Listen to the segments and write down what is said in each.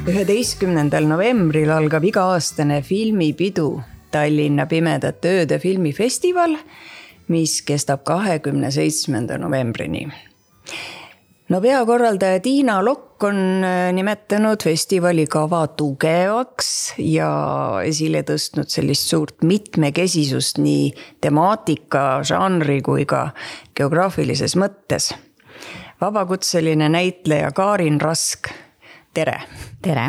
11. novembril algab iga-aastane filmipidu Tallinna Pimedate ööde filmifestival, mis kestab 27. novembrini. No peakorraldaja Tiina Lokk on nimetanud festivali kava tugevaks ja esile tõstnud sellist suurt mitmekesisust nii temaatika, žanri kui ka geograafilises mõttes. Vabakutseline näitleja Karin Rask, tere! Tere!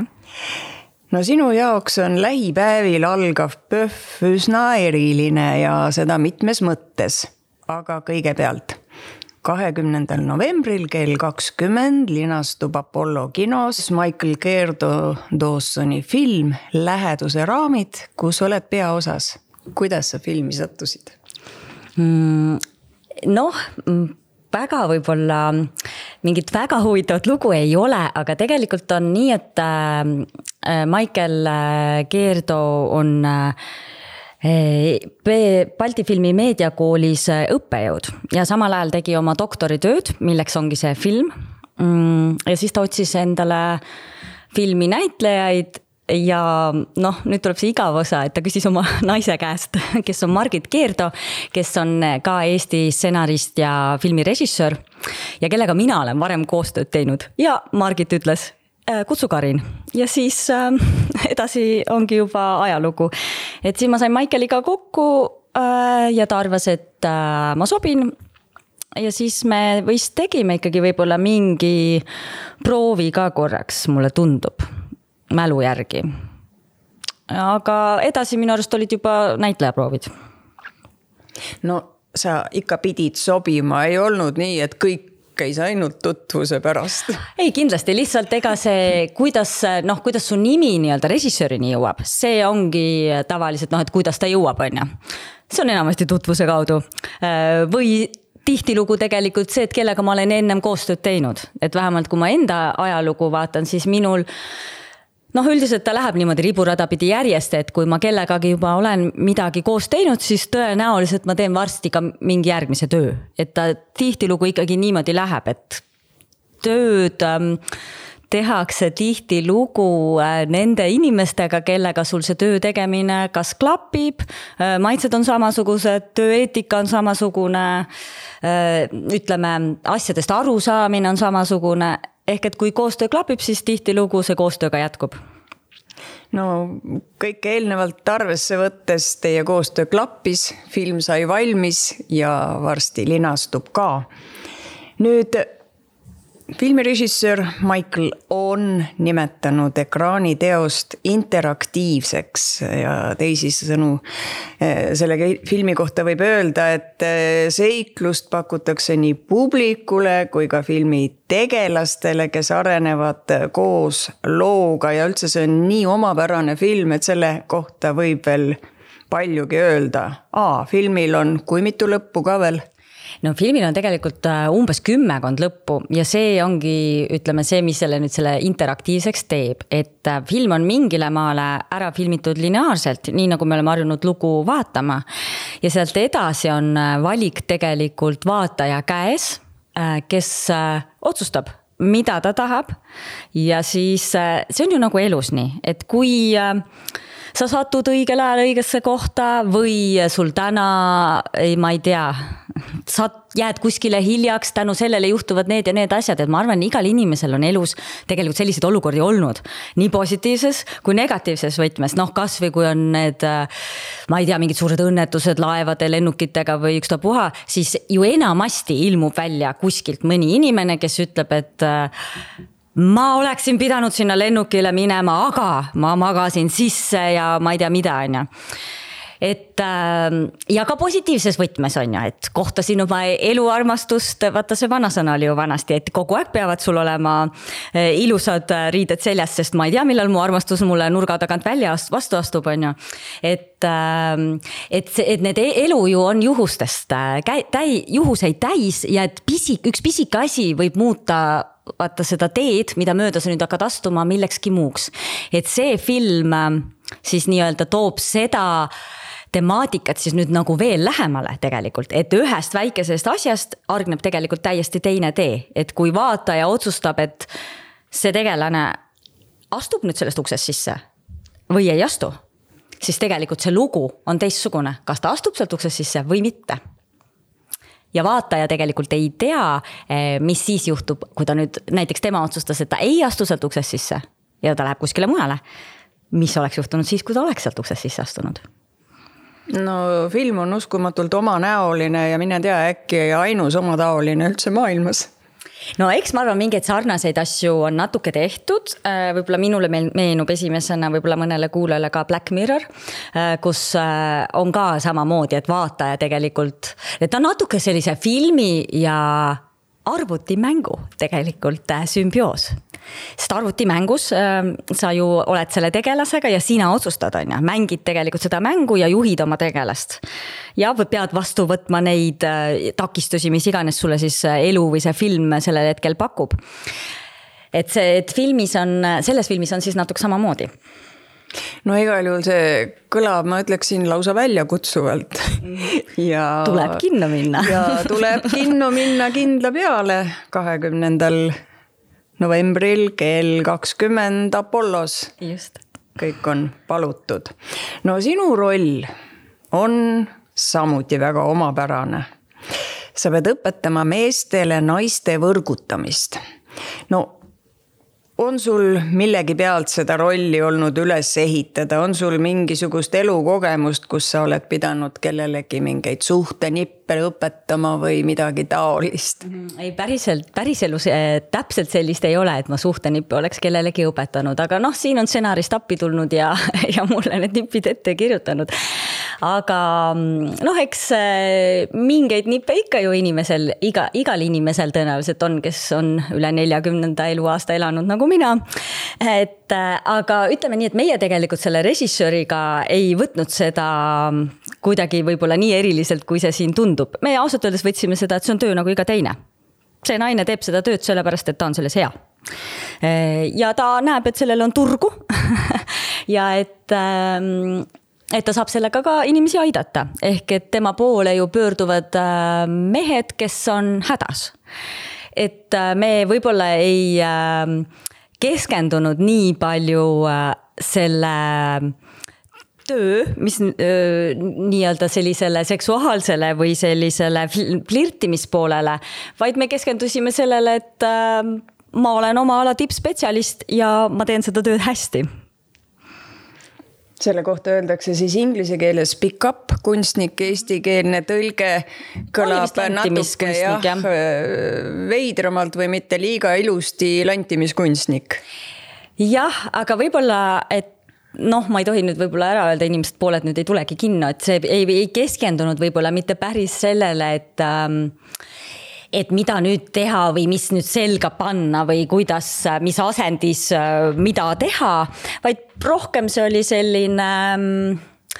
No sinu jaoks on lähipäevil algav PÖFF üsna eriline ja seda mitmes mõttes, aga kõigepealt 20. novembril kell 20 linastub Apollo kinos Michael Dawsoni film Läheduse raamid, kus oled peaosas. Kuidas sa filmi sattusid? Väga võib-olla mingit väga huvitavat lugu ei ole, aga tegelikult on nii, et Michael Gerdo on Balti filmi meediakoolis õppejõud ja samal ajal tegi oma doktoritööd, milleks ongi see film. Ja siis ta otsis endale filmi näitlejaid ja nüüd tuleb see igav osa, et ta küsis oma naise käest, kes on Margit Gerdo, kes on ka Eesti stsenarist ja filmirežissöör ja kellega mina olen varem koostööd teinud. Ja Margit ütles, kutsu Karin. Ja siis edasi ongi juba ajalugu. Et siis ma sain Michaeliga kokku ja ta arvas, et ma sobin. Ja siis me vist tegime ikkagi võib-olla mingi proovi ka korraks, mulle tundub, mälu järgi. Aga edasi minu arust olid juba näitlejaproovid. No sa ikka pidid sobima, ei olnud nii, et kõik käis ainult tutvuse pärast. Ei, kindlasti lihtsalt ega see, kuidas su nimi nii-öelda režissöörini jõuab, see ongi tavaliselt, et kuidas ta jõuab, on. See on enamasti tutvuse kaudu. Või tihtilugu tegelikult see, et kellega ma olen ennem koostööd teinud. Et vähemalt kui ma enda ajalugu vaatan, siis minul üldiselt ta läheb niimoodi riburada pidi järjest, et kui ma kellegagi juba olen midagi koos teinud, siis tõenäoliselt ma teen varsti ka mingi järgmise töö. Et ta tihtilugu ikkagi niimoodi läheb, et tööd tehakse tihtilugu nende inimestega, kellega sul see töö tegemine kas klapib, maitsed on samasugused, tööeetika on samasugune, ütleme, asjadest arusaamine on samasugune. Ehk et kui koostöö klapib, siis tihtilugu see koostöö ka jätkub. No kõik eelnevalt arvesse võttes teie koostöö klappis, film sai valmis ja varsti linastub ka. Nüüd filmirežissöör Michael on nimetanud ekraaniteost interaktiivseks ja teisisõnu selle filmi kohta võib öelda, et seiklust pakutakse nii publikule kui ka filmi tegelastele, kes arenevad koos looga ja üldse see on nii omapärane film, et selle kohta võib veel paljugi öelda. Filmil on kui mitu lõppu ka veel? No filmil on tegelikult umbes 10 lõppu ja see ongi, ütleme, see, mis selle interaktiivseks teeb, et film on mingile maale ära filmitud lineaarselt, nii nagu me oleme harjunud lugu vaatama ja sealt edasi on valik tegelikult vaataja käes, kes otsustab, mida ta tahab ja siis see on ju nagu elus nii, et kui sa satud õigel ajal õigesse kohta või sul täna, ma ei tea, sa jääd kuskile hiljaks, tänu sellele juhtuvad need ja need asjad, et ma arvan, igal inimesel on elus tegelikult selliseid olukordi olnud, nii positiivses kui negatiivses võtmes, kas või kui on need, ma ei tea, mingid suured õnnetused laevade, lennukitega või ükstapuha, siis ju enamasti ilmub välja kuskilt mõni inimene, kes ütleb, et ma oleksin pidanud sinna lennukile minema, aga ma magasin sisse ja ma ei tea mida, on. Et ja ka positiivses võtmes on, et kohtasin oma eluarmastust, vaata see vanasõna oli ju vanasti, et kogu aeg peavad sul olema ilusad riided seljas, sest ma ei tea, millal mu armastus mulle nurga tagant välja vastu astub, on. Et need elu ju on juhustest, juhuseid täis ja et üks pisike asi võib muuta vaata seda teed, mida mööda sa nüüd hakkad astuma millekski muuks. Et see film siis nii-öelda toob seda temaatikat siis nüüd nagu veel lähemale tegelikult, et ühest väikesest asjast argneb tegelikult täiesti teine tee, et kui vaataja otsustab, et see tegelane astub nüüd sellest uksest sisse või ei astu, siis tegelikult see lugu on teistsugune, kas ta astub sealt uksest sisse või mitte. Ja vaataja tegelikult ei tea, mis siis juhtub, kui ta nüüd näiteks tema otsustas, et ta ei astu sealt uksest sisse ja ta läheb kuskile mujale. Mis oleks juhtunud siis, kui ta oleks sealt uksest sisse astunud? No film on uskumatult omanäoline ja mine tea, äkki ainus omataoline üldse maailmas. No eks ma arvan, mingeid sarnaseid asju on natuke tehtud, võib-olla minule meenub esimesena võib-olla mõnele kuulajale ka Black Mirror, kus on ka samamoodi, et vaataja tegelikult, et on natuke sellise filmi ja arvutimängu tegelikult sümbioos. Sest arvutimängus sa ju oled selle tegelasega ja sina otsustad, mängid tegelikult seda mängu ja juhid oma tegelast. Ja pead vastu võtma neid takistusi, mis iganes sulle siis elu või see film sellel hetkel pakub. Et selles filmis on siis natuke samamoodi. No igal juhul see kõlab, ma ütleksin lausa välja kutsuvalt. Ja tuleb kinno minna. Ja tuleb kinno minna kindla peale 20. novembril kell 20 Apollos. Just. Kõik on palutud. No sinu roll on samuti väga omapärane. Sa pead õpetama meestele naiste võrgutamist. No on sul millegi pealt seda rolli olnud üles ehitada? On sul mingisugust elukogemust, kus sa oled pidanud kellelegi mingeid suhtenippe õpetama või midagi taolist? Ei, päriselus täpselt sellist ei ole, et ma suhtenippe oleks kellelegi õpetanud, aga siin on stsenarist appi tulnud ja mulle need nipid ette kirjutanud. Aga eks mingeid nippe ikka ju igal inimesel tõenäoliselt on, kes on üle 40. eluaasta elanud nagu mina. Aga ütleme nii, et meie tegelikult selle režissööriga ei võtnud seda kuidagi võib-olla nii eriliselt, kui see siin tundub. Me ausalt öeldes võtsime seda, et see on töö nagu iga teine. See naine teeb seda tööd sellepärast, et ta on selles hea. Ja ta näeb, et sellel on turgu ja et ta saab sellega ka inimesi aidata. Ehk et tema poole ju pöörduvad mehed, kes on hädas. Et me võib-olla ei keskendunud nii palju selle töö, mis nii-öelda sellisele seksuaalsele või sellisele flirtimispoolele, vaid me keskendusime sellele, et ma olen oma ala tippspetsialist ja ma teen seda tööd hästi. Selle kohta öeldakse siis inglise keeles pick up kunstnik, eestikeelne tõlge kõlab natuke veidramalt või mitte liiga ilusti lantimiskunstnik. Jah, aga võib-olla, et ma ei tohi nüüd võib-olla ära öelda, inimesed pooled nüüd ei tulegi kinno, et see ei keskendunud võib-olla mitte päris sellele, et mida nüüd teha või mis nüüd selga panna või kuidas, mis asendis, mida teha, vaid rohkem see oli selline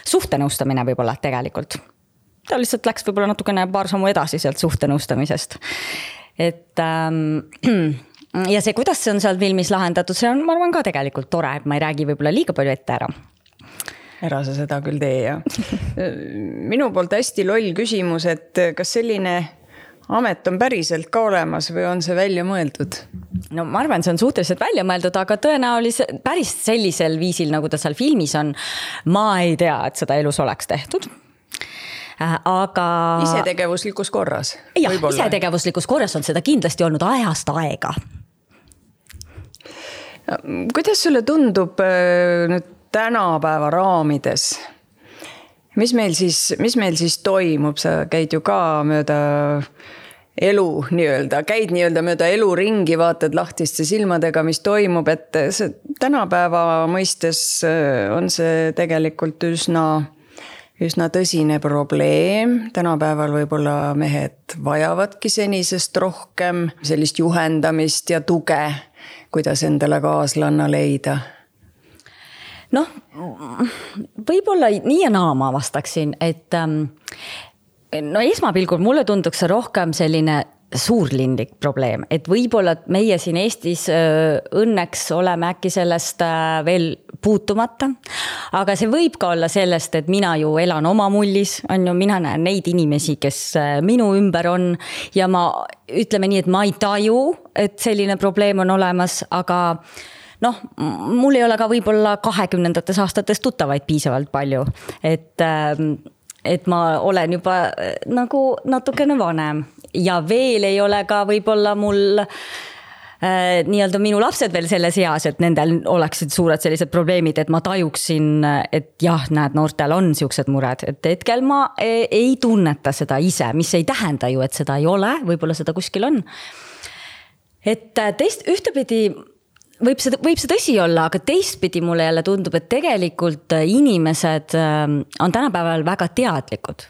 suhtenõustamine võib-olla tegelikult. Ta lihtsalt läks võib-olla natukene paar sammu edasi sealt suhtenõustamisest. Ja see, kuidas see on seal filmis lahendatud, see on, ma arvan, ka tegelikult tore, et ma ei räägi võib-olla liiga palju ette ära. Ära sa seda küll tee, ja. Minu poolt hästi loll küsimus, et kas selline amet on päriselt ka olemas või on see välja mõeldud? No ma arvan, see on suhteliselt välja mõeldud, aga tõenäoliselt päris sellisel viisil, nagu ta seal filmis on, ma ei tea, et seda elus oleks tehtud. Aga isetegevuslikus korras? Jah, isetegevuslikus korras on seda kindlasti olnud ajast aega. Kuidas sulle tundub nüüd tänapäeva raamides? Mis meil siis toimub? Sa käid ju ka mööda elu käid mööda elu ringi, vaatad lahtiste silmadega, mis toimub, et see tänapäeva mõistes on see tegelikult üsna tõsine probleem. Tänapäeval võib-olla mehed vajavadki senisest rohkem sellist juhendamist ja tuge, kuidas endale kaaslanna leida. Võib-olla nii ja naa ma vastaksin, et esmapilgul mulle tunduks see rohkem selline suurlindik probleem, et võib-olla meie siin Eestis õnneks oleme äkki sellest veel puutumata, aga see võib ka olla sellest, et mina ju elan oma mullis, mina näen neid inimesi, kes minu ümber on ja ma ütleme nii, et ma ei taju, et selline probleem on olemas, aga noh, mul ei ole ka võib-olla 20. aastates tuttavaid piisavalt palju, et ma olen juba nagu natukene vanem ja veel ei ole ka võib-olla mul nii-öelda minu lapsed veel selles eas, et nendel oleksid suured sellised probleemid, et ma tajuksin, et jah, näed, noortel on siuksed mured, et hetkel ma ei tunneta seda ise, mis ei tähenda ju, et seda ei ole, võib-olla seda kuskil on. Et ühtepidi võib see tõsi olla, aga teistpidi mulle jälle tundub, et tegelikult inimesed on tänapäeval väga teadlikud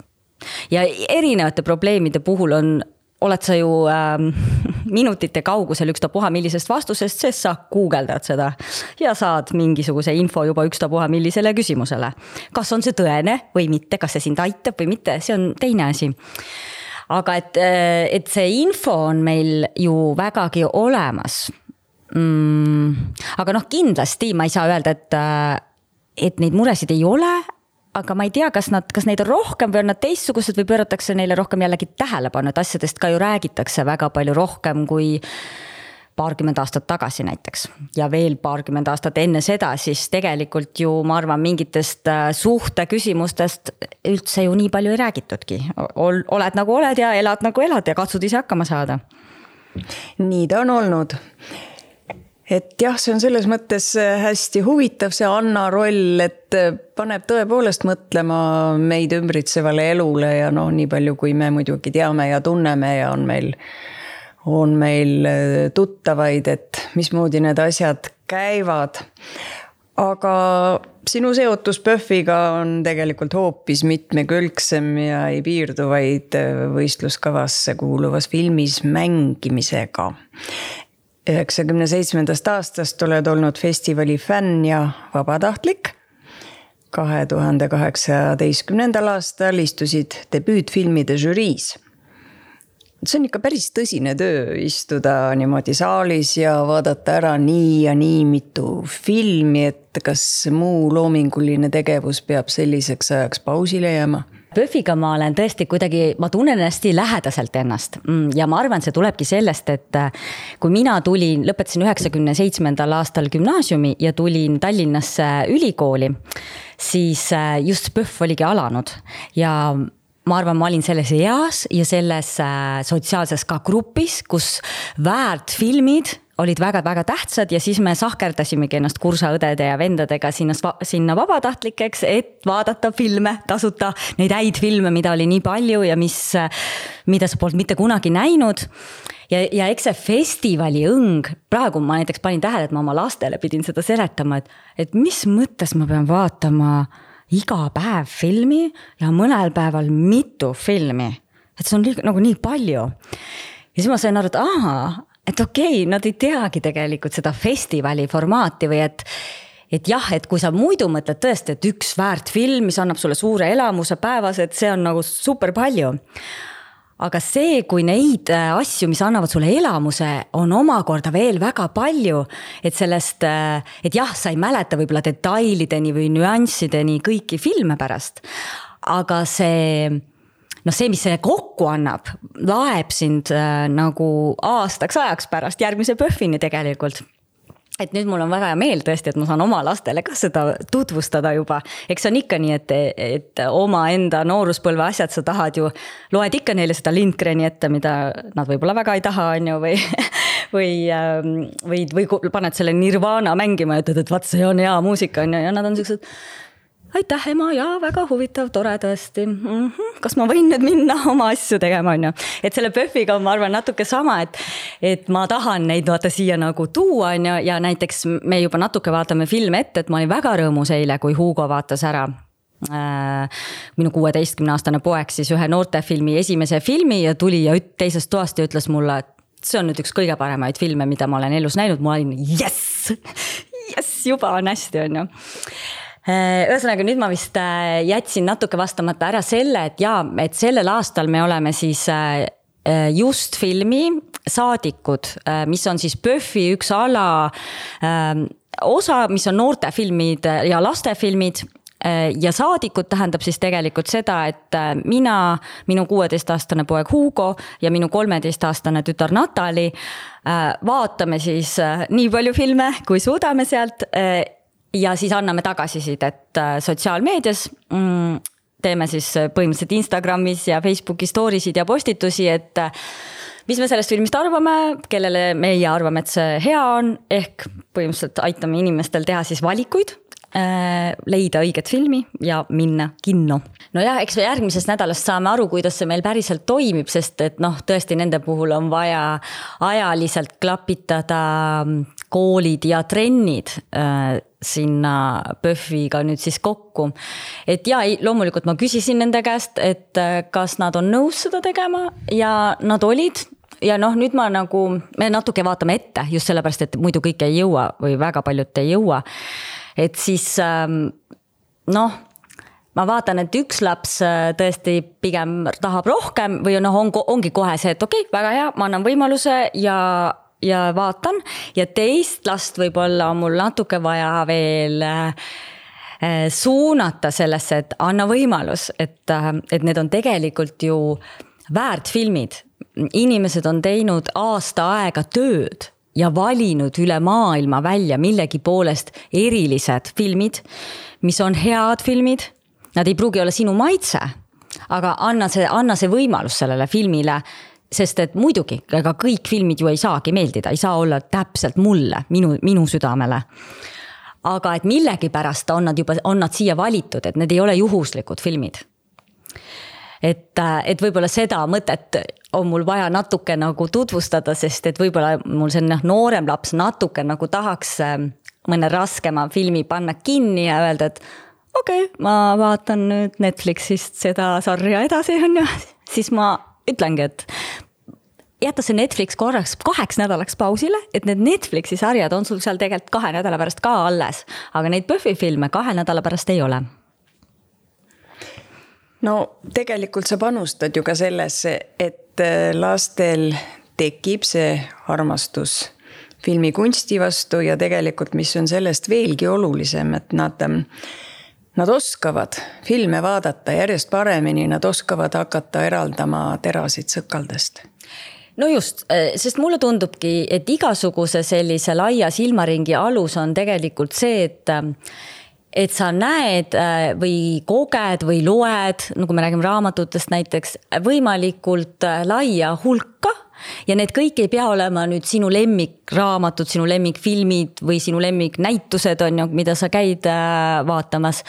ja erinevate probleemide puhul oled sa ju minutite kaugusel ükstapuha millisest vastusest, sest sa guugeldad seda ja saad mingisuguse info juba ükstapuha millisele küsimusele. Kas on see tõene või mitte, kas see sind aitab või mitte, see on teine asi. Aga et see info on meil ju vägagi olemas. Aga noh, kindlasti ma ei saa öelda, et neid muresid ei ole, aga ma ei tea, kas neid on rohkem või on nad teistsugused või pööratakse neile rohkem jällegi tähelepanu, et asjadest ka ju räägitakse väga palju rohkem kui paarkümmend aastat tagasi näiteks. Ja veel paarkümmend aastat enne seda, siis tegelikult ju ma arvan mingitest suhte küsimustest üldse ju nii palju ei räägitudki. Oled nagu oled ja elad nagu elad ja katsud ise hakkama saada. Nii ta on olnud. Et jah, see on selles mõttes hästi huvitav see Anna roll, et paneb tõepoolest mõtlema meid ümbritsevale elule ja nii palju, kui me muidugi teame ja tunneme ja on meil tuttavaid, et mismoodi need asjad käivad. Aga sinu seotus PÖFFiga on tegelikult hoopis mitmekülgsem ja ei piirdu vaid võistluskavasse kuuluvas filmis mängimisega. 97. aastast oled olnud festivali fänn ja vabatahtlik. 2018. aastal istusid debüütfilmide žüriis. See on ikka päris tõsine töö istuda niimoodi saalis ja vaadata ära nii ja nii mitu filmi, et kas muu loominguline tegevus peab selliseks ajaks pausile jääma? PÖFFiga ma olen tõesti kuidagi, ma tunnen hästi lähedaselt ennast ja ma arvan, see tulebki sellest, et kui mina lõpetasin 97. aastal gümnaasiumi ja tulin Tallinnasse ülikooli, siis just PÖFF oligi alanud ja ma arvan, ma olin selles eas ja selles sotsiaalses ka grupis, kus väärtfilmid olid väga-väga tähtsad ja siis me sahkerdasimegi ennast kursaõdede ja vendadega sinna vabatahtlikeks, et vaadata filme, tasuta neid häid filme, mida oli nii palju ja mida sa polnud mitte kunagi näinud. Ja eks see festivali õng, praegu ma näiteks panin tähele, et ma oma lastele pidin seda seletama, et mis mõttes ma pean vaatama iga päev filmi ja mõnel päeval mitu filmi. Et see on nagu nii palju. Ja siis ma sain aru, et okei, nad ei teagi tegelikult seda festivali formaati või et jah, et kui sa muidu mõtled tõesti, et üks väärt film, mis annab sulle suure elamuse päevas, et see on nagu super palju. Aga see, kui neid asju, mis annavad sulle elamuse, on omakorda veel väga palju, et sellest, et jah, sa ei mäleta võib-olla detailideni või nüanssideni kõiki filme pärast, aga see, mis see kokku annab, laeb sind nagu aastaks ajaks pärast järgmise PÖFFini tegelikult. Et nüüd mul on väga hea meel tõesti, et ma saan oma lastele ka seda tutvustada juba. Eks on ikka nii, et oma enda nooruspõlve asjad sa tahad ju, loed ikka neile seda Lindgreni ette, mida nad võib-olla väga ei taha, on ju, või paned selle Nirvana mängima ja ütled, et vaat see on hea muusika, on ju, ja nad on sellised, aitäh ema, ja väga huvitav, tore tõesti. Kas ma võin nüüd minna oma asju tegema, on ju? Et selle PÖFFiga on, ma arvan, natuke sama, et ma tahan neid vaata siia nagu tuua, on ju, ja näiteks me juba natuke vaatame filme ette, et ma olin väga rõõmus eile, kui Hugo vaatas ära minu 16-aastane poeg siis ühe noortefilmi esimese filmi ja tuli ja teisest toast ja ütles mulle, et see on nüüd üks kõige paremaid filme, mida ma olen elus näinud. Ma olin, yes, juba on hästi, on ju. Ühesõnaga nüüd ma vist jätsin natuke vastamata ära selle, et sellel aastal me oleme siis just filmi Saadikud, mis on siis PÖFFi üks ala osa, mis on noortefilmid ja lastefilmid. ja saadikud tähendab siis tegelikult seda, et mina, minu 16-aastane poeg Hugo ja minu 13-aastane tütar Natali vaatame siis nii palju filme, kui suudame sealt ja siis anname tagasisidet sotsiaalmeedias. Teeme siis põhimõtteliselt Instagramis ja Facebooki stories'id ja postitusi, et mis me sellest filmist arvame, kellele meie arvame, et see hea on, ehk põhimõtteliselt aitame inimestel teha siis valikuid, leida õiget filmi ja minna kinno. No jah, eks me järgmisest nädalast saame aru, kuidas see meil päriselt toimib, sest et tõesti nende puhul on vaja ajaliselt klapitada koolid ja trennid sinna PÖFFiga nüüd siis kokku. Et ja, loomulikult ma küsisin nende käest, et kas nad on nõus seda tegema ja nad olid. Ja nüüd me natuke vaatame ette just sellepärast, et muidu kõik ei jõua või väga paljud ei jõua. Et siis ma vaatan, et üks laps tõesti pigem tahab rohkem või ongi kohe see, et okei, väga hea, ma annan võimaluse ja vaatan ja teist last võib-olla on mul natuke vaja veel suunata sellesse, et anna võimalus, et need on tegelikult ju väärt filmid. Inimesed on teinud aasta aega tööd ja valinud üle maailma välja millegi poolest erilised filmid, mis on head filmid. Nad ei pruugi olla sinu maitse, aga anna see võimalus sellele filmile, sest et muidugi, ega kõik filmid ju ei saagi meeldida, ei saa olla täpselt mulle, minu südamele. Aga et millegi pärast on nad siia valitud, et need ei ole juhuslikud filmid. Et võib-olla seda mõtet on mul vaja natuke tutvustada, sest et võib-olla mul see noorem laps natuke tahaks mõne raskema filmi panna kinni ja öelda, et okei, ma vaatan nüüd Netflixist seda sarja edasi, siis ma ütlengi, et jätta see Netflix korraks 2 nädalaks pausile, et need Netflixi sarjad on sul seal tegelikult 2 nädala pärast ka alles, aga neid PÖFFi filme 2 nädala pärast ei ole. No tegelikult sa panustad ju ka sellesse, et lastel tekib see armastus filmikunsti vastu ja tegelikult, mis on sellest veelgi olulisem, et nad oskavad filme vaadata järjest paremini, nad oskavad hakata eraldama terasid sõkaldest. No just, sest mulle tundubki, et igasuguse sellise laia silmaringi alus on tegelikult see, et sa näed või koged või loed, nagu me räägime raamatutest näiteks, võimalikult laia hulka ja need kõik ei pea olema nüüd sinu lemmikraamatud, sinu lemmikfilmid või sinu lemmiknäitused on ju, mida sa käid vaatamas.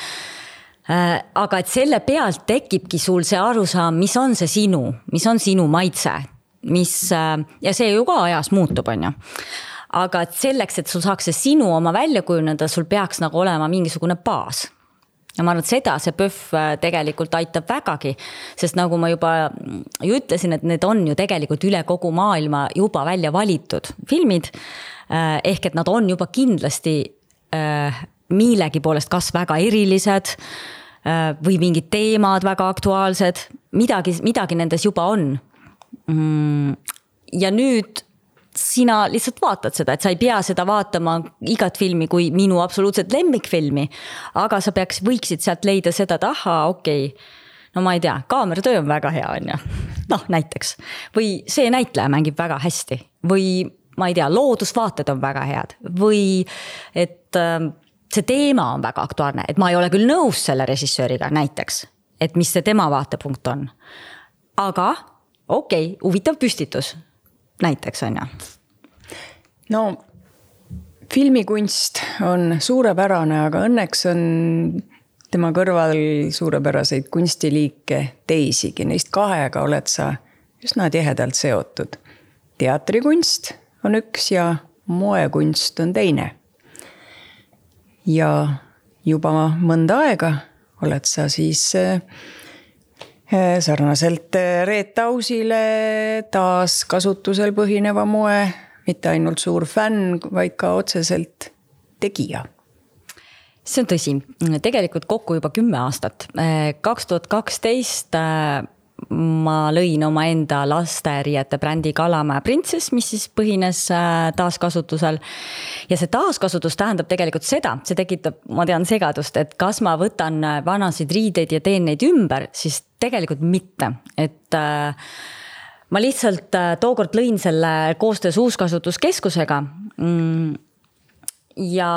Aga et selle pealt tekibki sul see arusaam, mis on sinu maitse, ja see ju ka ajas muutub on ju. Aga selleks, et sul saaks see sinu oma välja kujuneda, sul peaks olema mingisugune baas. Ja ma arvan, et seda see PÖFF tegelikult aitab vägagi, sest nagu ma juba ütlesin, et need on ju tegelikult üle kogu maailma juba välja valitud filmid, ehk et nad on juba kindlasti millegi poolest kas väga erilised või mingid teemad väga aktuaalsed, midagi nendes juba on. Ja nüüd sina lihtsalt vaatad seda, et sa ei pea seda vaatama igat filmi kui minu absoluutselt lemmikfilmi, aga sa võiksid sealt leida seda, et okei, no ma ei tea, kaameratöö on väga hea, on ju. Näiteks. Või see näitleja mängib väga hästi. Või ma ei tea, loodusvaated on väga head. Või et see teema on väga aktuaalne, et ma ei ole küll nõus selle režissööriga näiteks, et mis see tema vaatepunkt on. Aga okei, huvitav püstitus. Näiteks on ja. No, filmikunst on suurepärane, aga õnneks on tema kõrval suurepäraseid kunstiliike teisigi. Neist 2 oled sa üsna tihedalt seotud. Teatrikunst on üks ja moekunst on teine. Ja juba mõnda aega oled sa siis sarnaselt Reet Ausile taas kasutusel põhineva moe, mitte ainult suur fänn, vaid ka otseselt tegija. See on tõsi. Tegelikult kokku juba 10 aastat. 2012 ma lõin oma enda lasteriiete brändi Kalamaja Princess, mis siis põhines taaskasutusel. Ja see taaskasutus tähendab tegelikult seda, see tekitab, ma tean, segadust, et kas ma võtan vanasid riideid ja teen neid ümber, siis tegelikult mitte. Et ma lihtsalt tookord lõin selle koostöös uuskasutuskeskusega ja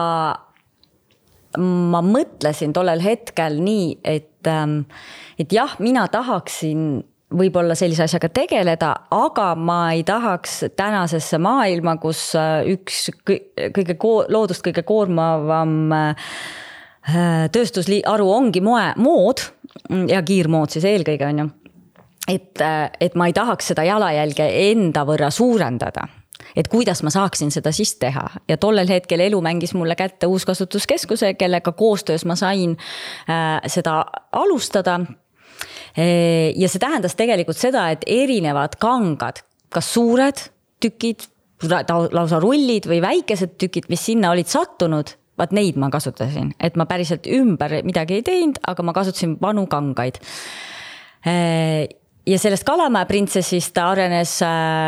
ma mõtlesin tollel hetkel nii, et jah, mina tahaksin võib-olla sellise asjaga tegeleda, aga ma ei tahaks tänasesse maailma, kus üks loodust kõige koormavam tööstusharu ongi mood ja kiirmood siis eelkõige on ju. Et ma ei tahaks seda jalajälge enda võrra suurendada. Et kuidas ma saaksin seda siis teha. Ja tollel hetkel elu mängis mulle kätte uuskasutuskeskuse, kellega koostöös ma sain seda alustada. Ja see tähendas tegelikult seda, et erinevad kangad, kas suured tükid, lausa rullid või väikesed tükid, mis sinna olid sattunud, vaat neid ma kasutasin. Et ma päriselt ümber midagi ei teinud, aga ma kasutasin vanu kangaid. Ja sellest Kalamaja Princessist arenes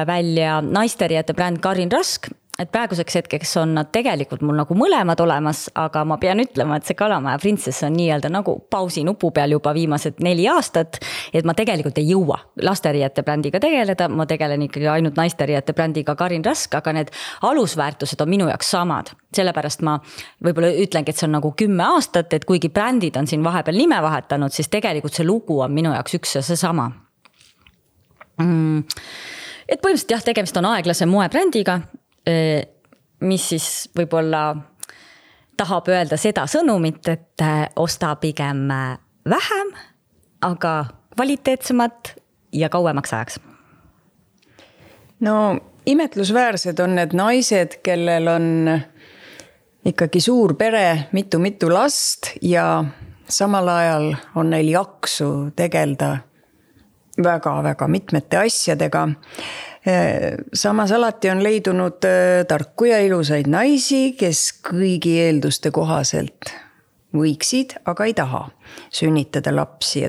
välja naisteriiete bränd Karin Rask, et praeguseks hetkeks on nad tegelikult mul nagu mõlemad olemas, aga ma pean ütlema, et see Kalamaja Princess on nii-öelda nagu pausi nupu peal juba viimased 4 aastat, et ma tegelikult ei jõua lasteriiete brändiga tegeleda, ma tegelen ikkagi ainult naisteriiete brändiga Karin Rask, aga need alusväärtused on minu jaoks samad. Sellepärast ma võib-olla ütlengi, et see on nagu 10 aastat, et kuigi brändid on siin vahepeal nime vahetanud, siis tegelikult see lugu on minu jaoks üks ja see sama. Et põhimõtteliselt jah, tegemist on aeglase moebrändiga, mis siis võib-olla tahab öelda seda sõnumit, et osta pigem vähem, aga kvaliteetsemat ja kauemaks ajaks. No imetlusväärsed on need naised, kellel on ikkagi suur pere, mitu last ja samal ajal on neil jaksu tegelda väga mitmete asjadega. Samas alati on leidunud tarku ja ilusaid naisi, kes kõigi eelduste kohaselt võiksid, aga ei taha sünnitada lapsi.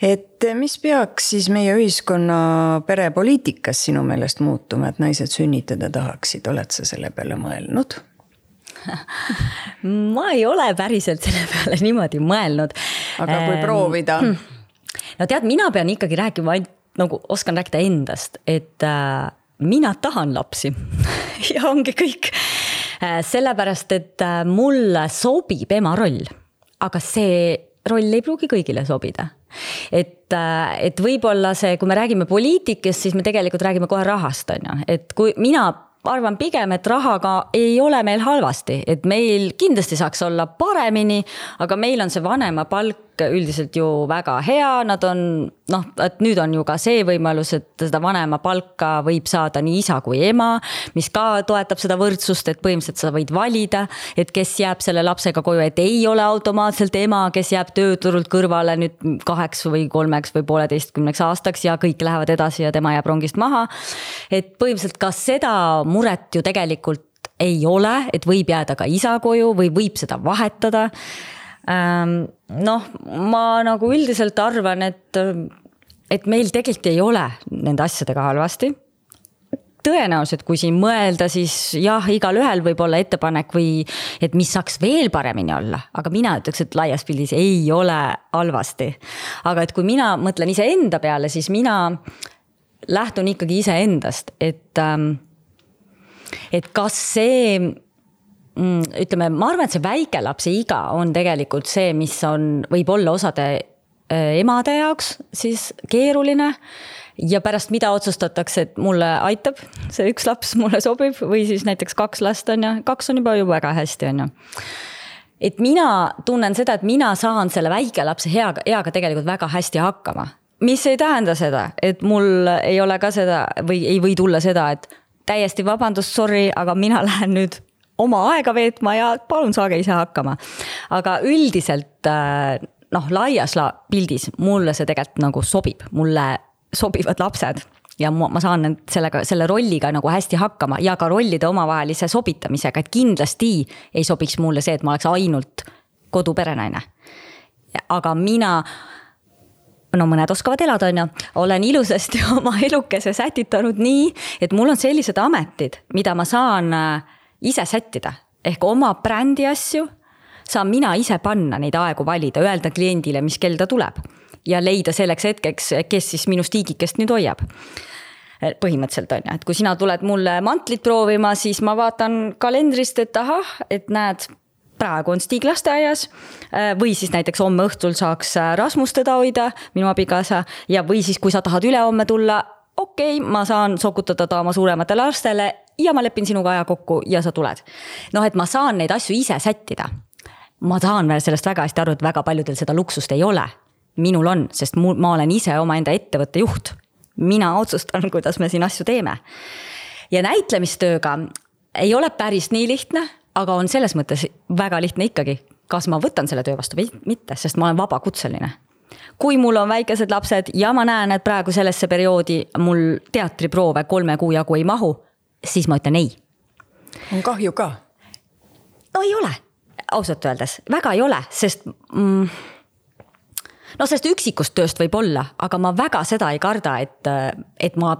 Et mis peaks siis meie ühiskonna perepoliitikas sinu meelest muutuma, et naised sünnitada tahaksid? Oled sa selle peale mõelnud? Ma ei ole päriselt selle peale niimoodi mõelnud. Aga kui proovida? No tead, mina pean ikkagi rääkima, nagu oskan rääkida endast, et mina tahan lapsi ja ongi kõik. Sellepärast, et mulle sobib ema roll, aga see roll ei pruugi kõigile sobida. Et võib-olla see, kui me räägime poliitikast, siis me tegelikult räägime kohe rahast. Et kui mina arvan pigem, et rahaga ei ole meil halvasti, et meil kindlasti saaks olla paremini, aga meil on see vanema palk üldiselt ju väga hea, nad on, et nüüd on ju ka see võimalus, et seda vanema palka võib saada nii isa kui ema, mis ka toetab seda võrdsust, et põhimõtteliselt sa võid valida, et kes jääb selle lapsega koju, et ei ole automaatselt ema, kes jääb tööturult kõrvale nüüd 8 või 3 või 1,5 aastaks ja kõik lähevad edasi ja tema jääb rongist maha. Et põhimõtteliselt ka seda muret ju tegelikult ei ole, et võib jääda ka isa koju või võib seda vahetada. Ma nagu üldiselt arvan, et meil tegelikult ei ole nende asjadega halvasti. Tõenäoliselt, kui siin mõelda, siis jah, igal ühel võib olla ettepanek või et mis saaks veel paremini olla, aga mina ütleks, et laias pildis ei ole halvasti. Aga et kui mina mõtlen ise enda peale, siis mina lähtun ikkagi ise endast, et kas see, ütleme, ma arvan, et see väikelapse iga on tegelikult see, mis on võib-olla osade emade jaoks siis keeruline ja pärast mida otsustatakse, et mulle aitab, see üks laps mulle sobib või siis näiteks 2 last on ja 2 on juba väga hästi on ju. Et mina tunnen seda, et mina saan selle väikelapse eaga tegelikult väga hästi hakkama, mis ei tähenda seda, et mul ei ole ka seda või ei või tulla seda, et täiesti vabandust, sorry, aga mina lähen nüüd oma aega veetma ja palun saage ise hakkama. Aga üldiselt laias pildis mulle see tegelikult nagu sobib, mulle sobivad lapsed ja ma saan selle rolliga nagu hästi hakkama ja ka rollide omavahelise sobitamisega, et kindlasti ei sobiks mulle see, et ma oleks ainult koduperenaine. Aga mina no mõned oskavad elada, on ju, olen ilusasti oma elukese sätitanud nii, et mul on sellised ametid, mida ma saan ise sättida. Ehk oma brändi asju saan mina ise panna neid aegu valida, öelda kliendile, mis kell ta tuleb ja leida selleks hetkeks, kes siis minu stiigikest nüüd hoiab. Põhimõtteliselt on ju, et kui sina tuled mulle mantlit proovima, siis ma vaatan kalendrist, et ahah, et näed, praegu on Stig lasteaias või siis näiteks homme õhtul saaks Rasmus teda hoida, minu abikaasa, ja või siis kui sa tahad ülehomme tulla, okei, ma saan sokutada ta oma suurematele lastele ja ma lepin sinuga aja kokku ja sa tuled. Noh, et ma saan neid asju ise sättida. Ma tahan veel sellest väga hästi aru, et väga paljudel seda luksust ei ole. Minul on, sest ma olen ise oma enda ettevõtte juht. Mina otsustan, kuidas me siin asju teeme. Ja näitlemistööga ei ole päris nii lihtne, aga on selles mõttes väga lihtne ikkagi, kas ma võtan selle töö vastu või mitte, sest ma olen vabakutseline. Kui mul on väikesed lapsed ja ma näen, et praegu sellesse perioodi mul teatriproove 3 kuu jagu ei mahu, siis ma ütlen ei. On kahju ka? No ei ole, ausalt öeldes. Väga ei ole, sest no sest üksikust tööst võib olla, aga ma väga seda ei karda, et ma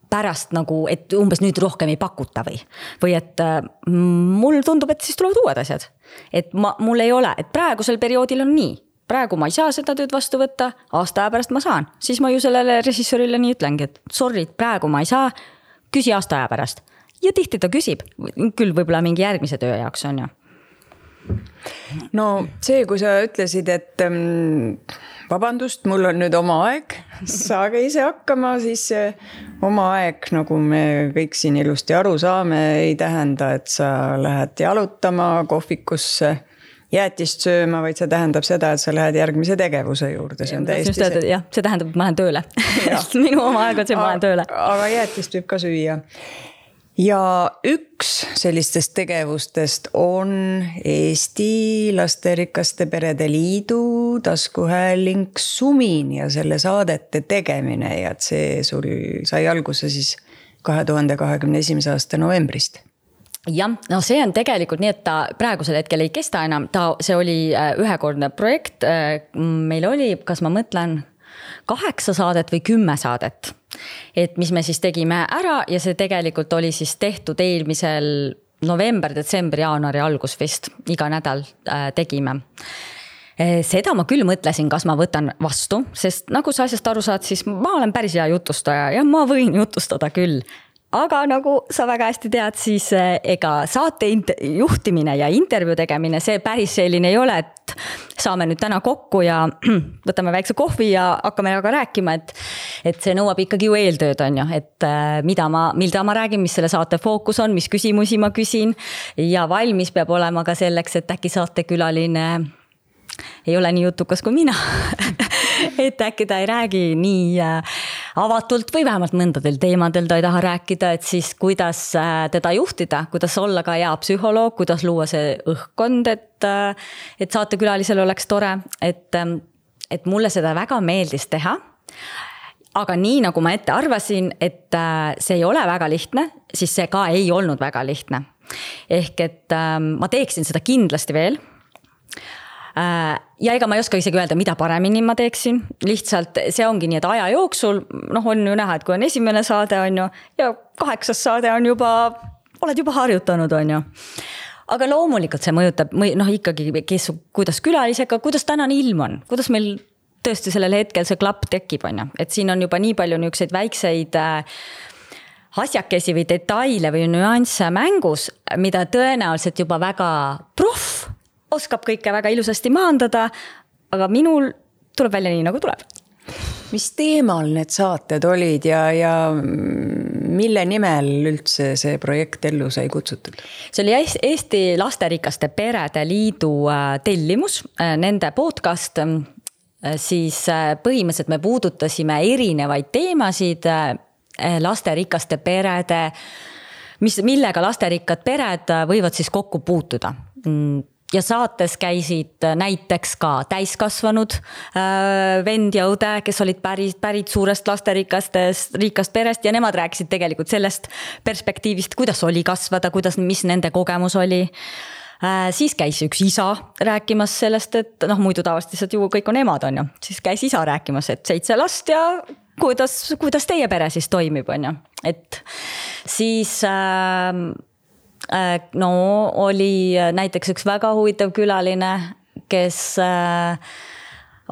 pärast nagu, et umbes nüüd rohkem ei pakuta või et mul tundub, et siis tulevad uued asjad. Et mul ei ole, et praegusel perioodil on nii. Praegu ma ei saa seda tööd vastu võtta, aasta aja pärast ma saan. Siis ma ju sellele režissöörile nii ütlengi, et sorry, praegu ma ei saa, küsi aasta aja pärast. Ja tihti ta küsib, küll võib-olla mingi järgmise töö jaoks on ju. No see, kui sa ütlesid, et vabandust, mul on nüüd oma aeg, saage ise hakkama, siis oma aeg, nagu me kõik siin ilusti aru saame, ei tähenda, et sa lähed jalutama kohvikusse, jäätist sööma, vaid see tähendab seda, et sa lähed järgmise tegevuse juurde. See on täiesti see. Jah, see tähendab, et ma lähen tööle. Minu oma aeg on see, ma lähen tööle. Aga jäätist võib ka süüa. Ja üks sellistest tegevustest on Eesti Lasterikaste Perede Liidu taskuhääling Sumin ja selle saadete tegemine ja et see sul sai alguse siis 2021. aasta novembrist. Jah, no see on tegelikult nii, et ta praegusel hetkel ei kesta enam, see oli ühekordne projekt, meil oli, kas ma mõtlen 8 saadet või 10 saadet, et mis me siis tegime ära ja see tegelikult oli siis tehtud eelmisel november, detsember, jaanuari algus vist, iga nädal tegime. Seda ma küll mõtlesin, kas ma võtan vastu, sest nagu sa asjast aru saad, siis ma olen päris hea jutustaja ja ma võin jutustada küll. Aga nagu sa väga hästi tead, siis ega saate juhtimine ja intervjuu tegemine, see päris selline ei ole, et saame nüüd täna kokku ja võtame väikse kohvi ja hakkame aga rääkima, et see nõuab ikkagi ju eeltööd on ju, et mida ma räägin, mis selle saate fookus on, mis küsimusi ma küsin ja valmis peab olema ka selleks, et äkki saatekülaline ei ole nii jutukas kui mina, et äkki ta ei räägi nii avatult või vähemalt mõndadel teemadel ta ei taha rääkida, et siis kuidas teda juhtida, kuidas olla ka hea psühholoog, kuidas luua see õhkkond, et saatekülalisel oleks tore, et mulle seda väga meeldis teha. Aga nii nagu ma ette arvasin, et see ei ole väga lihtne, siis see ka ei olnud väga lihtne. Ehk et ma teeksin seda kindlasti veel. Ja ega ma ei oska isegi öelda, mida paremini ma teeksin. Lihtsalt see ongi nii, et aja jooksul on ju näha, et kui on esimene saade on ju, ja 8. saade on juba, oled juba harjutanud on ju. Aga loomulikult see mõjutab ikkagi, kuidas külalisega, kuidas tänane ilm on, kuidas meil tõesti sellel hetkel see klapp tekib on ju. Et siin on juba nii palju niukseid väikseid asjakesi või detaile või nüansse mängus, mida tõenäoliselt juba väga proff oskab kõike väga ilusasti maandada, aga minul tuleb välja nii, nagu tuleb. Mis teemal need saated olid ja mille nimel üldse see projekt ellu sai kutsutud? See oli Eesti Lasterikaste Perede Liidu tellimus, nende podcast, siis põhimõtteliselt me puudutasime erinevaid teemasid lasterikaste perede, millega lasterikkad pered võivad siis kokku puutuda. Ja saates käisid näiteks ka täiskasvanud vend ja õde, kes olid pärit suurest lasterikast perest ja nemad rääkisid tegelikult sellest perspektiivist, kuidas oli kasvada, mis nende kogemus oli. Siis käis üks isa rääkimas sellest, et muidu tavaliselt ju kõik on emad, on ju. Siis käis isa rääkimas, et 7 last ja kuidas teie pere siis toimib, on ju. Et siis oli näiteks üks väga huvitav külaline, kes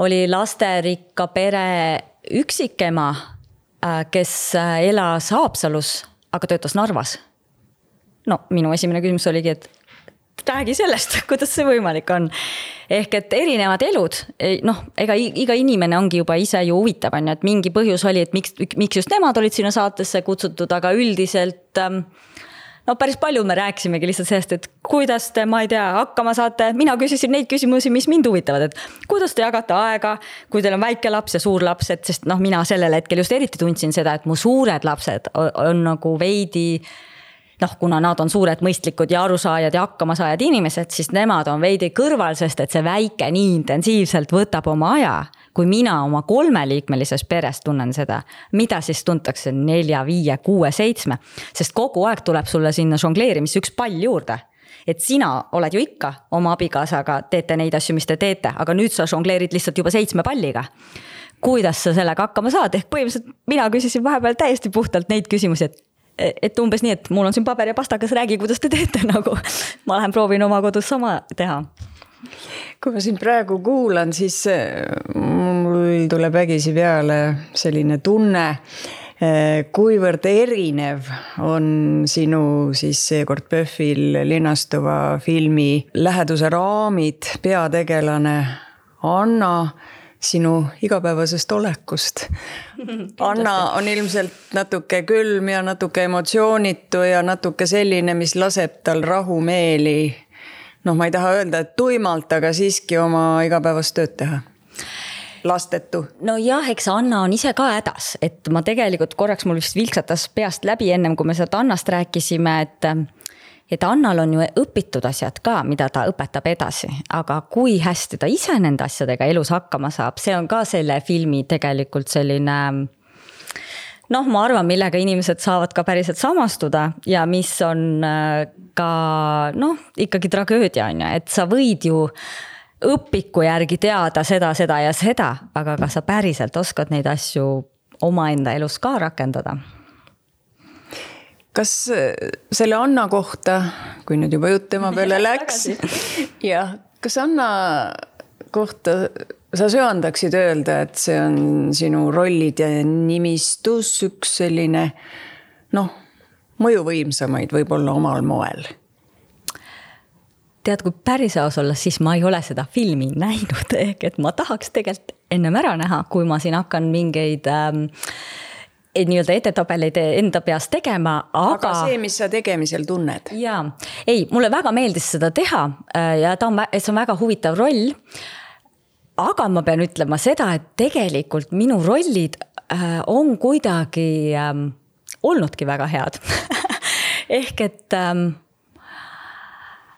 oli lasterikka pere üksikema, kes elas Haapsalus, aga töötas Narvas. Minu esimene küsimus oligi, et räägi sellest, kuidas see võimalik on. Ehk et erinevad elud, ega iga inimene ongi juba ise ju huvitav, on ju, et mingi põhjus oli, et miks just nemad olid sinna saatesse kutsutud, aga üldiselt päris palju me rääkisimegi lihtsalt sellest, et kuidas te, ma ei tea, hakkama saate. Mina küsisin neid küsimusi, mis mind huvitavad, et kuidas te jagate aega, kui teil on väike laps ja suur laps, et sest mina sellel hetkel just eriti tundsin seda, et mu suured lapsed on nagu veidi, kuna nad on suured mõistlikud ja arusaajad ja hakkamasaajad inimesed, siis nemad on veidi kõrval, sest et see väike nii intensiivselt võtab oma aja, kui mina oma 3-liikmelises peres tunnen seda, mida siis tuntakse 4, 5, 6, 7, sest kogu aeg tuleb sulle sinna žongleerimisse üks pall juurde. Et sina oled ju ikka oma abikaasaga, teete neid asju, mis te teete, aga nüüd sa žongleerid lihtsalt juba 7 palliga. Kuidas sa sellega hakkama saad? Ehk põhimõtteliselt mina küsisin vahepeal täiesti puhtalt neid küsimusi, et umbes nii, et mul on siin paber ja pastakas, räägi, kuidas te teete, nagu ma lähen proovin oma kodus sama teha. Kui ma siin praegu kuulan, siis mul tuleb vägisi peale selline tunne, kuivõrd erinev on sinu siis seekord PÖFFil linastuva filmi läheduse raamid, peategelane Anna sinu igapäevasest olekust. Anna on ilmselt natuke külm ja natuke emotsioonitu ja natuke selline, mis laseb tal rahumeeli. Ma ei taha öelda, et tuimalt, aga siiski oma igapäevast tööd teha. Lastetu. Jah, eks Anna on ise ka hädas, et ma tegelikult korraks mul vist vilksatas peast läbi ennem, kui me sealt Annast rääkisime, et Annal on ju õpitud asjad ka, mida ta õpetab edasi, aga kui hästi ta ise nende asjadega elus hakkama saab, see on ka selle filmi tegelikult selline, ma arvan, millega inimesed saavad ka päriselt samastuda ja mis on ka, ikkagi tragöödia on ju, et sa võid ju õpiku järgi teada seda ja seda, aga kas sa päriselt oskad neid asju omaenda elus ka rakendada? Kas selle Anna kohta, kui nüüd juba jutt tema peale läks, kas Anna kohta sa söandaksid öelda, et see on sinu rollid ja nimistus üks selline, mõjuvõimsamaid võib-olla omal moel? Tead, kui päris aus olla, siis ma ei ole seda filmi näinud, ehk et ma tahaks tegelikult ennem ära näha, kui ma siin hakkan mingeid nii-öelda edetabeleid enda peast tegema, aga see, mis sa tegemisel tunned. Jaa, mulle väga meeldis seda teha ja see on väga huvitav roll, aga ma pean ütlema seda, et tegelikult minu rollid on kuidagi olnudki väga head. Ehk et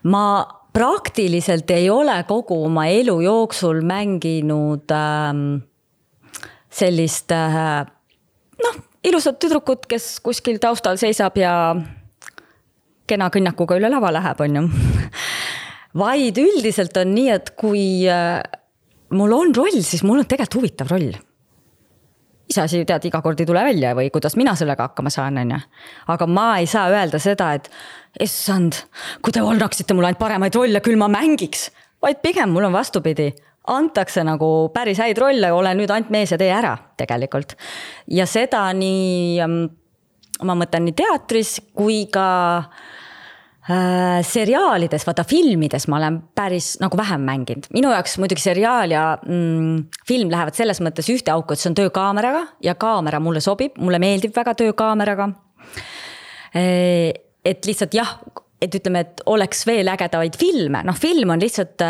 ma praktiliselt ei ole kogu oma elu jooksul mänginud sellist ilusad tüdrukut, kes kuskil taustal seisab ja kena kõnnakuga üle lava läheb, on ju. Vaid üldiselt on nii, et kui mul on roll, siis mul on tegelikult huvitav roll. Iseasi, tead, iga kord ei tule välja või kuidas mina sellega hakkama saan, on ju. Aga ma ei saa öelda seda, et issand, kui te annaksite mulle ainult paremaid rolle, küll ma mängiks. Vaid pigem mul on vastupidi. Antakse nagu päris häid rolle, ole nüüd ainult mees ja tee ära tegelikult. Ja seda nii, ma mõtlen nii teatris kui ka seriaalides, vaata filmides ma olen päris nagu vähem mänginud. Minu jaoks muidugi seriaal ja film lähevad selles mõttes ühte auku, et see on töökaameraga ja kaamera mulle sobib, mulle meeldib väga töökaameraga. Et lihtsalt jah, et ütleme, et oleks veel ägedavaid filme. Film on lihtsalt,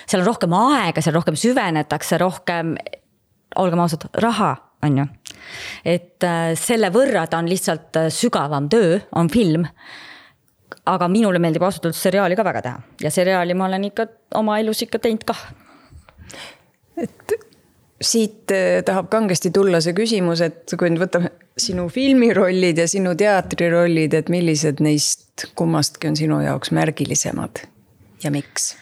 seal on rohkem aega, seal rohkem süvenetakse, rohkem, olgem ausad, raha on ju. Et selle võrra ta on lihtsalt sügavam töö, on film. Aga minule meeldib ausalt seriaali ka väga teha. Ja seriaali ma olen ikka oma elus ikka teinud ka. Et siit tahab kangesti tulla see küsimus, et kui nüüd võtame sinu filmirollid ja sinu teatrirollid, et millised neist kummastki on sinu jaoks märgilisemad? ja miks?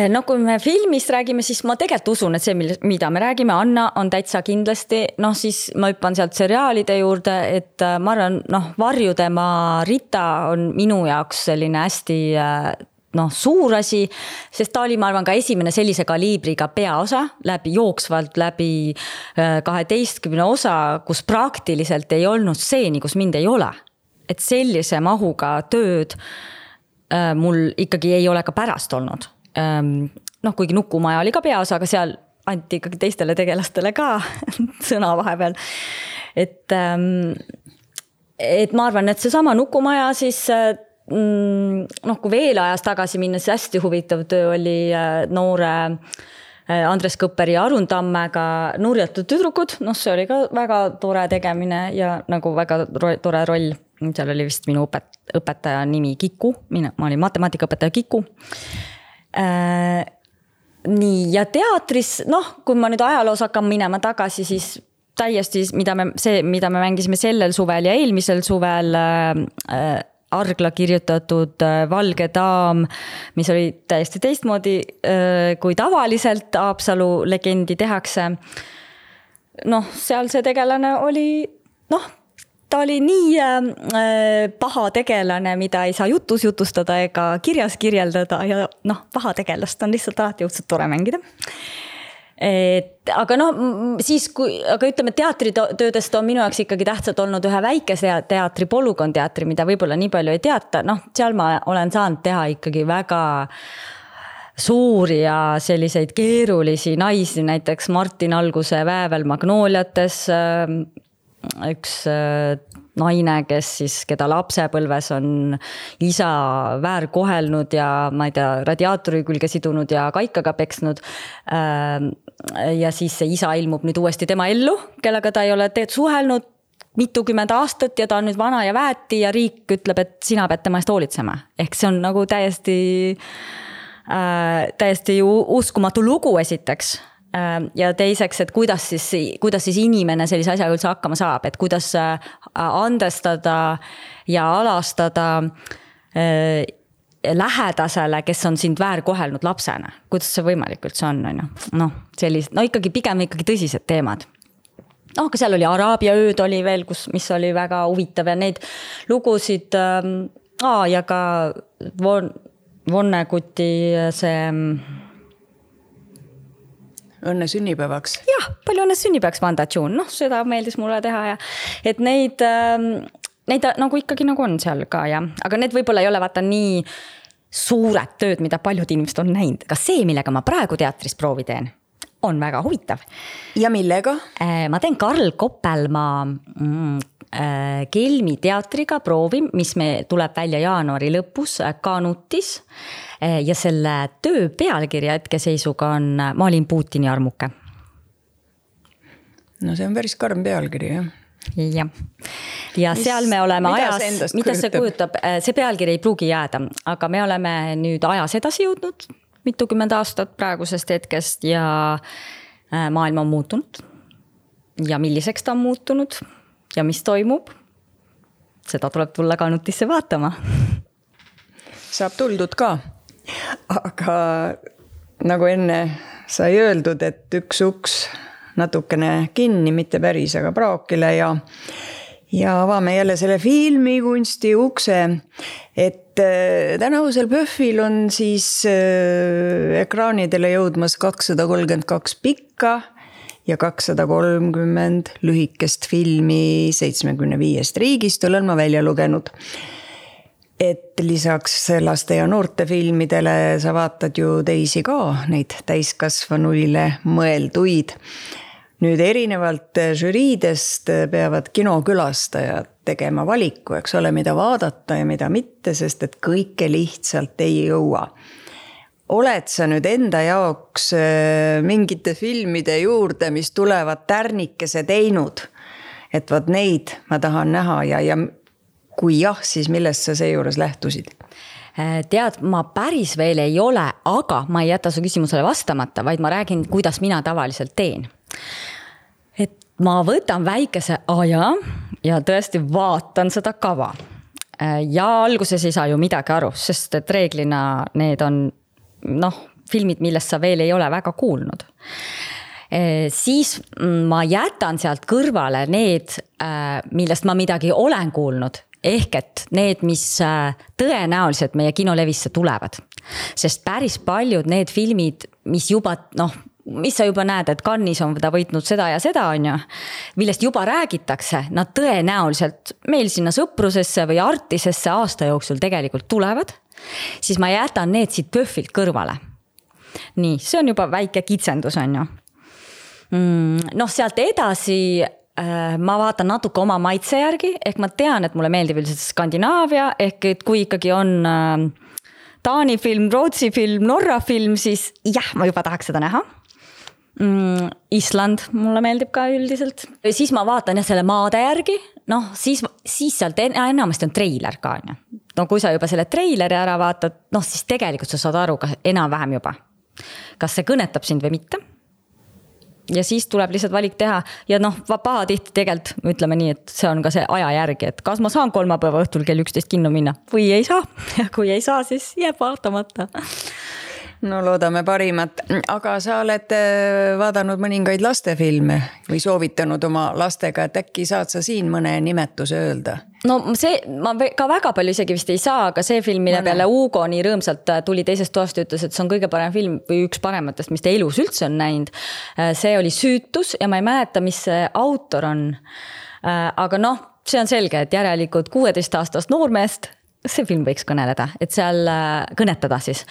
No kui me filmist räägime, siis ma tegelikult usun, et see, mida me räägime, Anna on täitsa kindlasti, siis ma hüppan sealt seriaalide juurde, et ma arvan, Varjudema Rita on minu jaoks selline hästi suur asi, sest ta oli, ma arvan, ka esimene sellise kaliibriga peaosa jooksvalt läbi 12 osa, kus praktiliselt ei olnud stseeni, kus mind ei ole. Et sellise mahuga tööd mul ikkagi ei ole ka pärast olnud. Kuigi Nukumaja oli ka peaosa, aga seal anti ikkagi teistele tegelastele ka sõna vahepeal. Et ma arvan, et see sama Nukumaja siis, kui veel ajas tagasi minna, siis hästi huvitav töö oli noore Andres Kõpperi ja Arun Tammega Nurjatud tüdrukud. See oli ka väga tore tegemine ja nagu väga tore roll. Seal oli vist minu õpetaja nimi Kiku, ma olin matemaatikaõpetaja Kiku. Nii, ja teatris, kui ma nüüd ajaloos hakkan minema tagasi, siis täiesti, mida me mängisime sellel suvel ja eelmisel suvel Argla kirjutatud Valge daam, mis oli täiesti teistmoodi kui tavaliselt Haapsalu legendi tehakse. Seal see tegelane oli, ta oli nii paha tegelane, mida ei saa jutus jutustada ega kirjas kirjeldada ja paha tegelast on lihtsalt alati õudselt tore mängida. Aga ütleme, teatritöödest on minu jaoks ikkagi tähtsalt olnud ühe väikese teatri, Polügon teatri, mida võib-olla nii palju ei teata. Seal ma olen saanud teha ikkagi väga suuri ja selliseid keerulisi naisi, näiteks Martin Alguse Väävel Magnooliates, üks naine, keda lapsepõlves on isa väärkohelnud ja ma ei tea, radiaatori külge sidunud ja kaikaga peksnud. Ja siis see isa ilmub nüüd uuesti tema ellu, kellega ta ei ole suhelnud mitukümmend aastat ja ta on nüüd vana ja väeti ja riik ütleb, et sina pead tema eest hoolitsema. Ehk see on nagu täiesti uskumatu lugu esiteks. Ja teiseks, et kuidas siis inimene sellise asjaga üldse hakkama saab, et kuidas andestada ja alastada lähedasele, kes on sind väärkohelnud lapsena. Kuidas see võimalik üldse on? Ikkagi pigem ikkagi tõsised teemad. Aga seal oli Araabia ööd oli veel, mis oli väga huvitav ja neid lugusid ja ka Vonneguti see õnne sünnipäevaks. Jah, palju õnne sünnipäevaks Vanda June. Seda meeldis mulle teha ja et neid nagu ikkagi nagu on seal ka ja, aga need võib-olla ei ole vaata nii suured tööd, mida paljud inimesed on näinud. Ka see, millega ma praegu teatris proovi teen, on väga huvitav. Ja millega? Ma teen Karl Koppelmaa Kelmi teatriga proovi, mis me tuleb välja jaanuari lõpus Kanutis ja selle töö pealkirja hetkeseisuga on Ma olin Putini armuke. See on päris karm pealkiri, jah? Jah. Ja seal me oleme ajas, mida see kujutab, see pealkiri ei pruugi jääda, aga me oleme nüüd ajas edasi jõudnud mitukümmend aastat praegusest hetkest ja maailm on muutunud ja milliseks ta on muutunud ja mis toimub, seda tuleb tulla Kanutisse vaatama. Saab tuldud ka, aga nagu enne sai öeldud, et üks uks natukene kinni, mitte päris, aga praokile ja avame jälle selle filmikunsti ukse, et tänavusel PÖFFil on siis ekraanidele jõudmas 232 pikka ja 230 lühikest filmi 75 riigist olen ma välja lugenud. Et lisaks laste ja noorte filmidele sa vaatad ju teisi ka, neid täiskasvanuile mõelduid. Nüüd erinevalt žüriidest peavad kinokülastajad tegema valiku, eks ole, mida vaadata ja mida mitte, sest et kõike lihtsalt ei jõua. Oled sa nüüd enda jaoks mingite filmide juurde, mis tulevad tärnikese teinud, et vaat neid ma tahan näha ja kui jah, siis millest sa seejuures lähtusid? Tead, ma päris veel ei ole, aga ma ei jäta su küsimusele vastamata, vaid ma räägin, kuidas mina tavaliselt teen. Et ma võtan väikese aja ja tõesti vaatan seda kava. ja alguses ei saa ju midagi aru, sest et reeglina need on filmid, millest sa veel ei ole väga kuulnud. Siis ma jätan sealt kõrvale need, millest ma midagi olen kuulnud, ehk et need, mis tõenäoliselt meie kinolevisse tulevad. Sest päris paljud need filmid, mis juba, mis sa juba näed, et Cannes'is on ta võitnud seda ja seda, on ju, millest juba räägitakse, nad tõenäoliselt meil sinna sõprusesse või artisesse aasta jooksul tegelikult tulevad, siis ma jätan need siit PÖFFilt kõrvale. Nii, see on juba väike kitsendus, on ju. Sealt edasi ma vaatan natuke oma maitse järgi, ehk ma tean, et mulle meeldib üldiselt Skandinaavia, ehk et kui ikkagi on Taani film, Rootsi film, Norra film, siis jah, ma juba tahaks seda näha. Island mulle meeldib ka üldiselt. Siis ma vaatan selle maade järgi, siis sealt enamasti on treiler ka. Kui sa juba selle treileri ära vaatad, siis tegelikult sa saad aru enam-vähem juba. Kas see kõnetab sind või mitte? Ja siis tuleb lihtsalt valik teha ja paha tihti tegelikult, ütleme nii, et see on ka see aja järgi, et kas ma saan kolmapäeva õhtul kell 11 kinno minna või ei saa. Ja kui ei saa, siis jääb vaatamata. No loodame parimat, aga sa oled vaadanud mõningaid lastefilme või soovitanud oma lastega, et äkki saad sa siin mõne nimetuse öelda? See, ma ka väga palju isegi vist ei saa, aga see film, mille peale Hugo nii rõõmsalt tuli teisest toast ja ütles, et see on kõige parem film või üks parematest, mis ta elus üldse on näinud. See oli Süütus ja ma ei mäleta, mis see autor on. Aga see on selge, et järelikult 16-aastast noormeest see film võiks kõneleda, et seal kõnetada siis.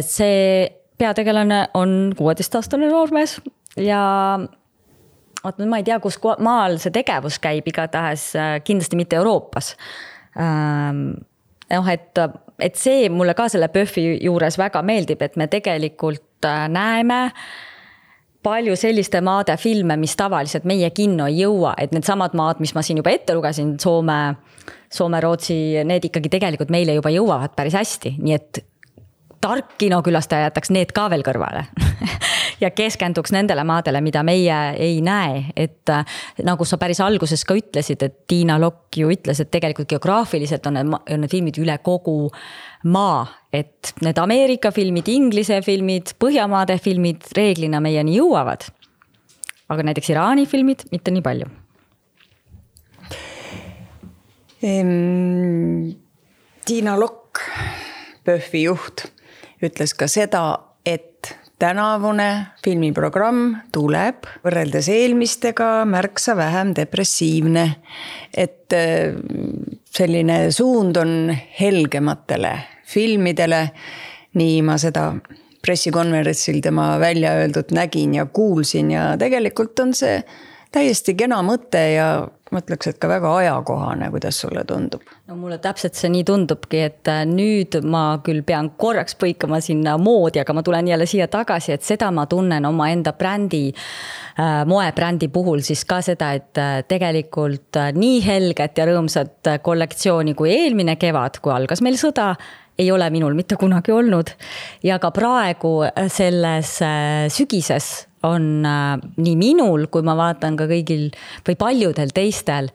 See peategelane on 16-aastane noormees ja ma ei tea, kus maal see tegevus käib, igatahes kindlasti mitte Euroopas. Et see mulle ka selle PÖFFi juures väga meeldib, et me tegelikult näeme palju selliste maade filme, mis tavaliselt meie kinno ei jõua, et need samad maad, mis ma siin juba ette lugesin, Soome, Rootsi, need ikkagi tegelikult meile juba jõuavad päris hästi, nii et tark kinokülastaja jätaks need ka veel kõrvale ja keskenduks nendele maadele, mida meie ei näe, et nagu sa päris alguses ka ütlesid, et Tiina Lokk ju ütles, et tegelikult geograafiliselt on need filmid üle kogu maa, et need Ameerika filmid, Inglise filmid, Põhjamaade filmid reeglina meieni jõuavad, aga näiteks Iraani filmid mitte nii palju. Tiina Lokk, PÖFFi juht, ütles ka seda, et tänavune filmiprogramm tuleb võrreldes eelmistega märksa vähem depressiivne, et selline suund on helgematele filmidele, nii ma seda pressikonverentsil tema välja öeldud nägin ja kuulsin ja tegelikult on see täiesti kena mõte ja mõtleks, et ka väga ajakohane, kuidas sulle tundub? Mulle täpselt see nii tundubki, et nüüd ma küll pean korraks põikama sinna moodi, aga ma tulen jälle siia tagasi, et seda ma tunnen oma enda brändi, moebrändi puhul siis ka seda, et tegelikult nii helget ja rõõmsat kollektsiooni kui eelmine kevad, kui algas meil sõda, ei ole minul mitte kunagi olnud. Ja ka praegu selles sügises on nii minul, kui ma vaatan ka kõigil või paljudel teistel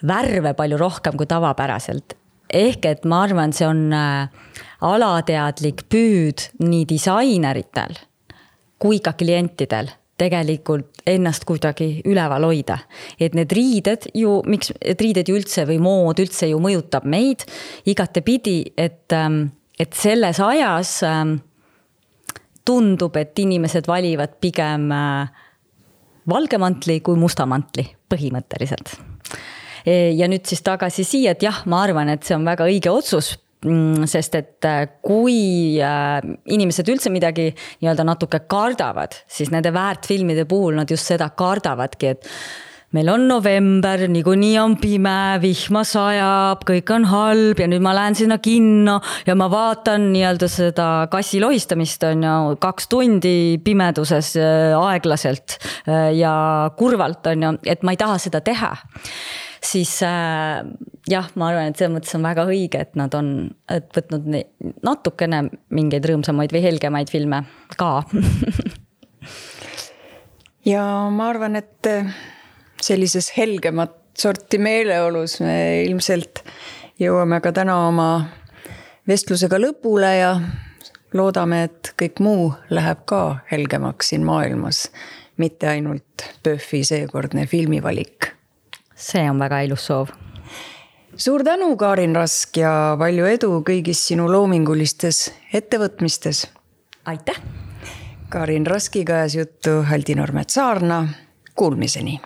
värve palju rohkem kui tavapäraselt. Ehk et ma arvan, see on alateadlik püüd nii disaineritel kui ka klientidel tegelikult ennast kuidagi üleval hoida. Et need riided ju, miks riided ju üldse või mood üldse ju mõjutab meid igate pidi, et selles ajas tundub, et inimesed valivad pigem valgemantli kui mustamantli põhimõtteliselt. Ja nüüd siis tagasi siia, et jah, ma arvan, et see on väga õige otsus, sest et kui inimesed üldse midagi nii-öelda natuke kardavad, siis nende väärtfilmide puhul nad just seda kardavadki, et meil on november, niikuinii on pime, vihma sajab, kõik on halb ja nüüd ma lähen sinna kinno ja ma vaatan nii-öelda seda kassi lohistamist on ju 2 tundi pimeduses aeglaselt ja kurvalt on ju, et ma ei taha seda teha. Siis jah, ma arvan, et see mõttes on väga õige, et nad on võtnud natukene mingeid rõõmsamaid või helgemaid filme ka. Ja ma arvan, et sellises helgemat sorti meeleolus me ilmselt jõuame ka täna oma vestlusega lõpule ja loodame, et kõik muu läheb ka helgemaks siin maailmas, mitte ainult PÖFFi seekordne filmivalik. See on väga ilus soov. Suur tänu, Karin Rask, ja palju edu kõigis sinu loomingulistes ettevõtmistes. Aitäh! Karin Raskiga ajas juttu Haldi Normet Saarna. Kuulmiseni!